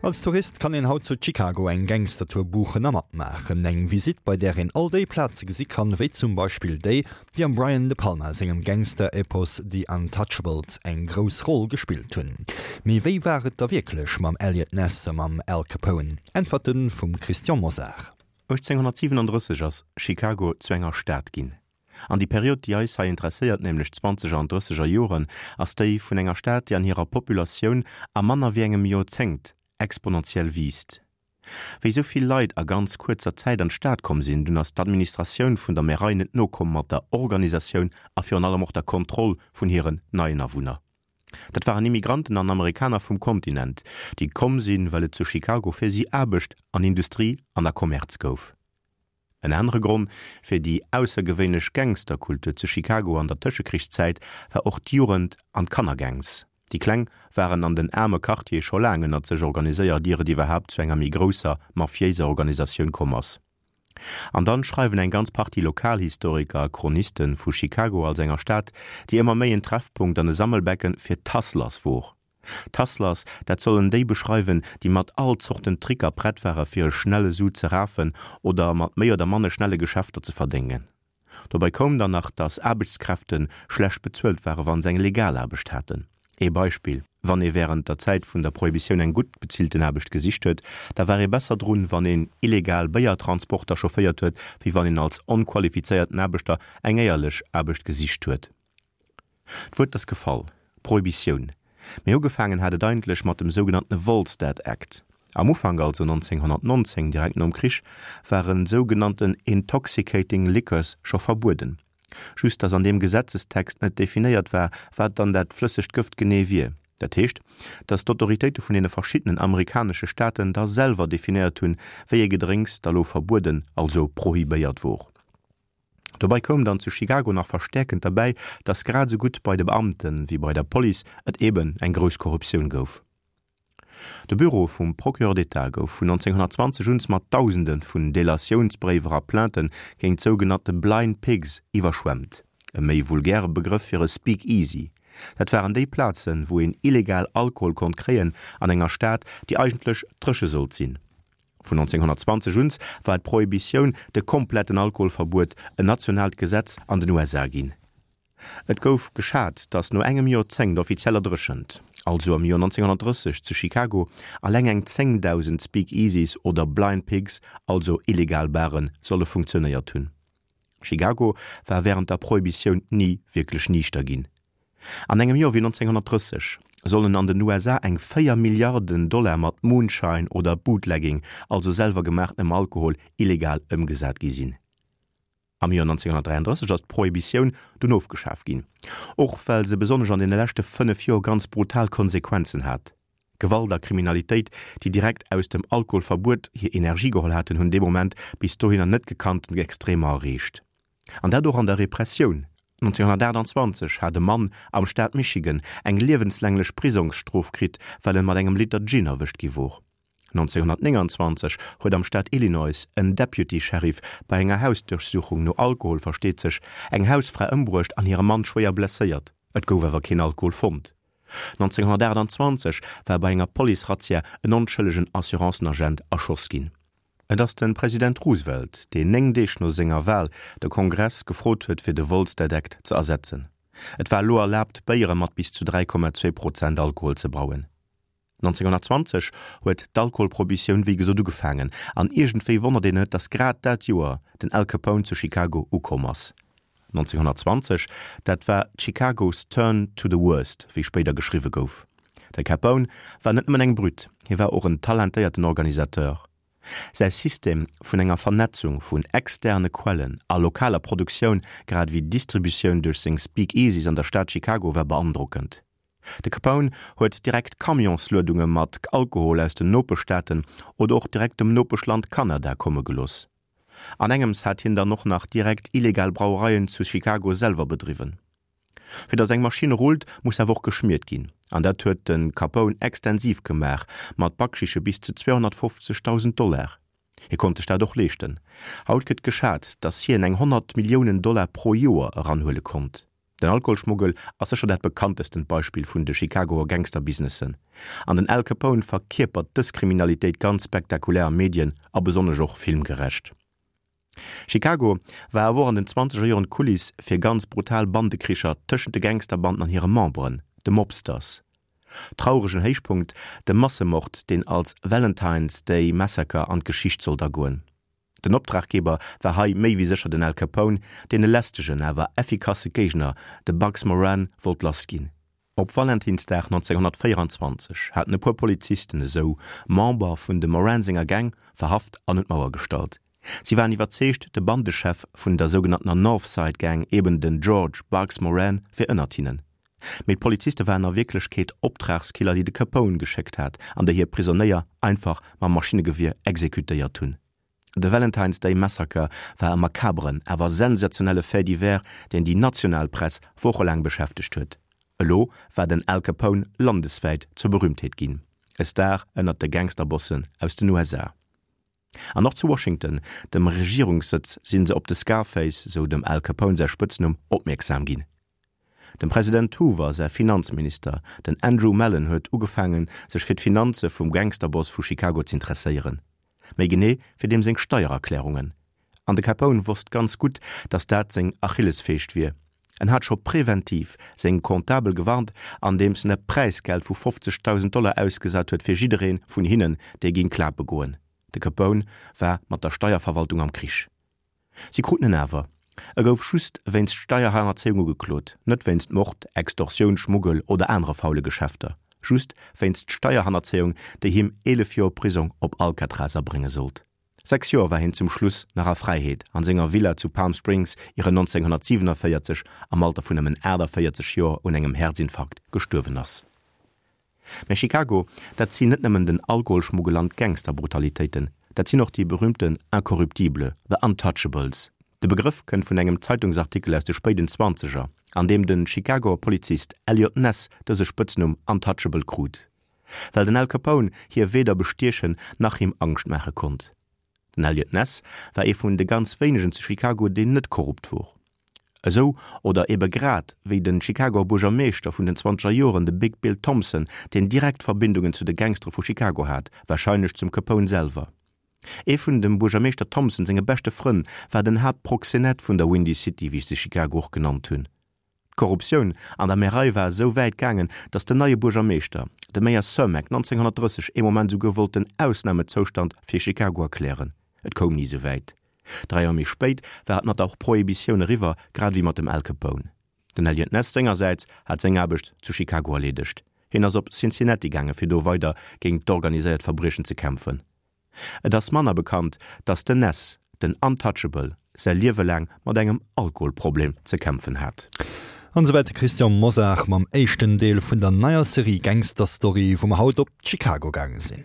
Als Tourist kann een haut zu Chicago eng Gangstertour buchen a matmaachen. Eng Visitt, bei där een all déi Plaze gesi kann, wéi zum Beispill déi, déi am Brian De Palma sengem Gangster-Epos The Untouchables eng grouss Roll gespillt hunn. Mee wéi war et da wierklech mam Eliot Ness a mam Al Capone? Äntwerte vum Christian Mosar. 1837 ass Chicago zu enger Stad ginn. An déi Period, déi eis hei interesséiert, nämlech d'Zwanzeger an Drësseger Joren, ass déi vun enger Stad, déi an hirer Populatioun a manner wéi engem Joerzéngt exponentiell wiisst. Wéi esou vill Leit a ganz kuerzer Zäit an d'Stad komm sinn, dunn ass d'Administratioun vun der Märei net nokomm mat der Organisatioun a virun allem och der Kontroll vun hiren neien Awunner. Dat waren Immigranten an Amerikaner vum Kontinent, déi komm sinn, well et zu Chicago fir si Aarbecht an Industrie an a Kommerz gouf. En anere Gronn fir déi aussergewéinlech Gangsterkultur zu Chicago an der Tëschekrichszäit war och d'Jugend an d'Kannergangs. Déi Kleng waren an den aarme Quartiere scho laang ënnert sech organiséiert, ier et iwwerhaapt zu enger méi grousser mafiéiser Organisatioun komm ass. An dann schreiwen eng ganz Partie Lokalhistoriker a Chroniste vu Chicago als enger Stad, déi ëmmer méi en Treffpunkt an e Sammelbecken fir d'Hustlers wor. D'Hustlers, dat sollen déi beschreiwen, déi mat all Zorten Tricker prett ware fir e schnelle Su ze rafen oder mat méi oder manne schnelle Geschäfter ze verdéngen. Dobei koum dann nach, dass Aarbechtskräfte schlecht bezuelt ware wa se eng legal Aarbecht haten. Ee Beispill, Wann ee wärend der Zäit vun der Prohibitioun eng gutt bezillten Aarbecht gesicht huet, da war ee besser drun, wann een illegal Béiertransporter chaufféiert huet, wéi wann een als onqualifizéierten Aarbechter eng éierlech Aarbecht gesicht huet. D'Wuert ass gefall, Prohibitioun. Mee ugefaangen hat et eigentlech mat dem sougenannte Volstead Act. Am Ufank, also 1919, direkt nom Krich, ware sougenannten intoxicating liquors scho verbueden. Just datt an deem Gesetzestext net definéiert war, wat dann dat flëssegt Gëft genee wier. Dat heescht, datt d'Autoritéite vun deene verschiddenen amerikanesche Staaten da selwer definéiert hunn, wéi ee Gedrénks da lo verbueden, also prohibéiert wor. Dobei koum dann zu Chicago nach verstäerkend derbäi, dass grad esou gutt bei de Beamte wéi bei der Police et eben eng grouss Korruptioun gouf. De Büro vum Procureur d'État gouf vun 1920 un mat Dausende vun Delatiounsbréiwer a Plaintë géint sougenannte Blind Pigs iwwerschwemmt, e méi vulgäre Begrëff fir e Speakeasy. Dat waren déi Plazen, wou een illegal Alkohol konnt kréien an enger Stad, déi eigentlech dréche sollt sinn. Vun 1920 un war d'Prohibitioun, de kompletten Alkoholverbuet, en nationaalt Gesetz an den USA ginn. Et gouf geschat, datt no engem Joerzéngt offizieller Dréchent, also am Joer 1930 zu Chicago, alleng eng 10.000 Speakeasies oder Blind Pigs, also illegal Baren, solle funktionéiert hunn. Chicago war wärend der Prohibitioun ni wierklech niichter ginn. An engem Joer wéi 1930 sollen an den USA eng 4 Milliarden Dollar mat Moonshine oder Bootlegging, also selwer gemaachtenem Alkohol, illegal ëmgesat gi sinn. Am Joer 1933 ass d'Prohibitioun dunn ofgeschaf ginn, och well se besonnesch an deene leschte 5 Joer ganz brutal Konsequenzen hat. Gewalt a Kriminalitéit, déi direkt aus dem Alkoholverbuet hir Energie geholl haten, hunn dee Moment bis dohinner net gekannten Extremer erreecht. An dat och an der Repressioun. 1928 hat e Mann am Staat Michigan eng liewenslänglech Prisongsstrof kritt, well en mat engem Liter Gin erwëscht gi wor. 1929 huet am Staat Illinois en Deputy Sheriff bei enger Hausduerchsuchung, no Alkohol versteet sech, eng Hausfra ëmbruecht an hire Mann schwéier blesséiert. Et gouf awer keen Alkohol fonnt. 1928 war bei enger Police-Razzia en onschëllegen Assurancen-Agent erschoss ginn. Et ass de President Roosevelt, deen 9 Deeg no senger Wal de Kongress gefrot huet fir de Volstead Act ze ersetzen. Et war elo erlaabt Béiere mat bis zu 3,2 Prozent Alkohol ze brauen. 1920 huet d'Alkoholprohibitioun wéi gesot ugefaangen an iergendwéi wonnert een net, datt grad dat Joer den Al Capone zu Chicago ukomm ass. 1920, dat war Chicago's turn to the worst, wéi spéider geschriwwe gouf. De Capone war net nëmmen eng Brütt, hie war och en talentéierten Organisateur. Säi System vun enger Vernetzung vun externe Quellen a lokaler Produktioun grad ewéi Distributioun duerch seng Speakeasies an der Stad Chicago war beandrockend. De Capone huet direkt Camionsluedunge mat Alkohol aus den Nopeschstaaten oder och direkt dem Nopeschland Kanada komme gelooss. An engems hat hien dann och nach direkt illegal Brauereien zu Chicago selwer bedriwwen. Fir dass eng Maschinn rullt, muss awer och geschmiert ginn, an dat huet de Capone extensiv gemaach, mat Backschiche bis zu 250.000 Dollar. Hie konnt sech dat och leeschten. Haut gëtt geschat, dass hien eng 100 Milliounen Dollar pro Joer eranhuele konnt. Den Alkoholschmuggel ass sécher dat bekanntestent Beispill vun de Chicagoer Gangsterbusinessen, an den Al Capone verkierpert dës Kriminalitéit ganz spektakulär a Medien a besonnesch och filmgerecht. Chicago war awer och an den zwanzeger Joren d'Kuliss fir ganz brutal Bandekricher tëschent de Gangsterbanden an hire Memberen, de Mobsters. Trauregen Héichpunkt, de Massemord, deen als Valentine's Day Massacre an d'Geschicht sollt agoen. Den Optraggeber war hei méi wéi sécher den Al Capone, deen e lästegen, awer effikasse Géigner, de Bugs Moran, wollt lass ginn. Op Valentinsdag 1924 haten e puer Polizisten esou Member vun dem Moran senger Gang verhaft an un d'Mauer gestallt. Si waren iwwerzeegt, de Bandechef vun der sougenanntener North Side Gang, eben den George Bugs Moran, wier ënnert hinnen. Mee d'Poliziste waren a Wierklechkeet Optragskiller, déi de Capone geschéckt hat an déi hir Prisonéier einfach mam Maschinnegewier exekutéiert hunn. De Valentine's Day Massacre war e makaberen, awer sensationelle Fait divers, deen déi national Press wochelaang beschäftegt huet. Elo war den Al Capone landeswäit zur Berühmtheet ginn, e Star ënnert de Gangsterbossen aus den USA. An och zu Washington, dem Regierungssëtz, si se op de Scarface, sou dem Al Capone säi Spëtznumm, opmierksam ginn. Dem President Hoover säi Finanzminister, den Andrew Mellon huet ugefaangen, sech fir d'Finanze vum Gangsterboss vu Chicago z'interesséieren. Méi genee fir deem seng Steiererklärungen. An de Capone wosst ganz gutt, datt dat seng Achillesfeescht wier. En hat scho preventiv seng Comptabel gewarnt, andeems en e Präisgeld vu 50.000 Dollar ausgesat huet fir jidderee vun hinnen, dee géing klape goen. De Capone war mat der Steierverwaltung am Krich. Si kruten en awer. E gouf just wéinst Steierhannerzéiung ugeklot, net wéinst Mord, Extorsioun, Schmuggel oder anere faule Geschäfter. Just wéinst Steierhannerzéiung, déi him 11 Joer Prisong op Alcatraz abrénge sollt. 6 Joer war hien zum Schluss nach a Fräiheet an senger Villa zu Palm Springs, ier en 1947 am Alter vun nëmmen 48 Joer un engem Häerzinfarkt gestuerwen ass. Mä Chicago, dat sinn net nëmmen den Alkoholschmuggel an d'Gangsterbrutalitéiten, dat sinn och déi berühmten Incorruptibles, the Untouchables. De Begrëff kënnt vun engem Zeitungsartikel aus de spéiden Zwanzeger, an deem de Chicagoer Polizist Eliot Ness dëse Spëtznumm Untouchable krut, well den Al Capone hie weder bestiechen nach him Angscht maache konnt. Den Eliot Ness war ee vun de ganz wéinegen zu Chicago, deen net korrupt wor. Esou, oder ebe grad wéi den Chicagoer Buergermeeschter vun den zwanzeger Joren, de Big Bill Thompson, deen direkt Verbindungen zu de Gangstere vu Chicago hat, warscheinlech zum Capone selwer. Ee vun dem Buergermeeschter Thompson senge beschte Frënn war den Haaptproxenett vun der Windy City, wéi se Chicago och genannt hunn. D'Korruptioun an der Märei war esou wäit gaangen, datt den neie Buergermeeschter, de Mayor Cermak, 1930 ee Moment esouguer wollt den Ausnamezoustand fir Chicago erklären. Et koum ni esou wäit. Dräi Joer méi spéit war et mat der Prohibitioun eriwwer, grad ewéi mat dem Al Capone. Den Eliot Ness sengersäits hat seng Aarbecht zu Chicago erleedegt. Hien ass op Cincinnati gaange fir do weider géint d'organiséiert Verbriechen ze kämpfen. Et ass manner bekannt, datt den Ness, den Untouchable, säi Liewe laang mat engem Alkoholproblem ze kämpfen hat. An esouwäit de Christian Mosar mam éischten Deel vun der neier Serie Gangster Story, wou mer haut op Chicago gaange sinn.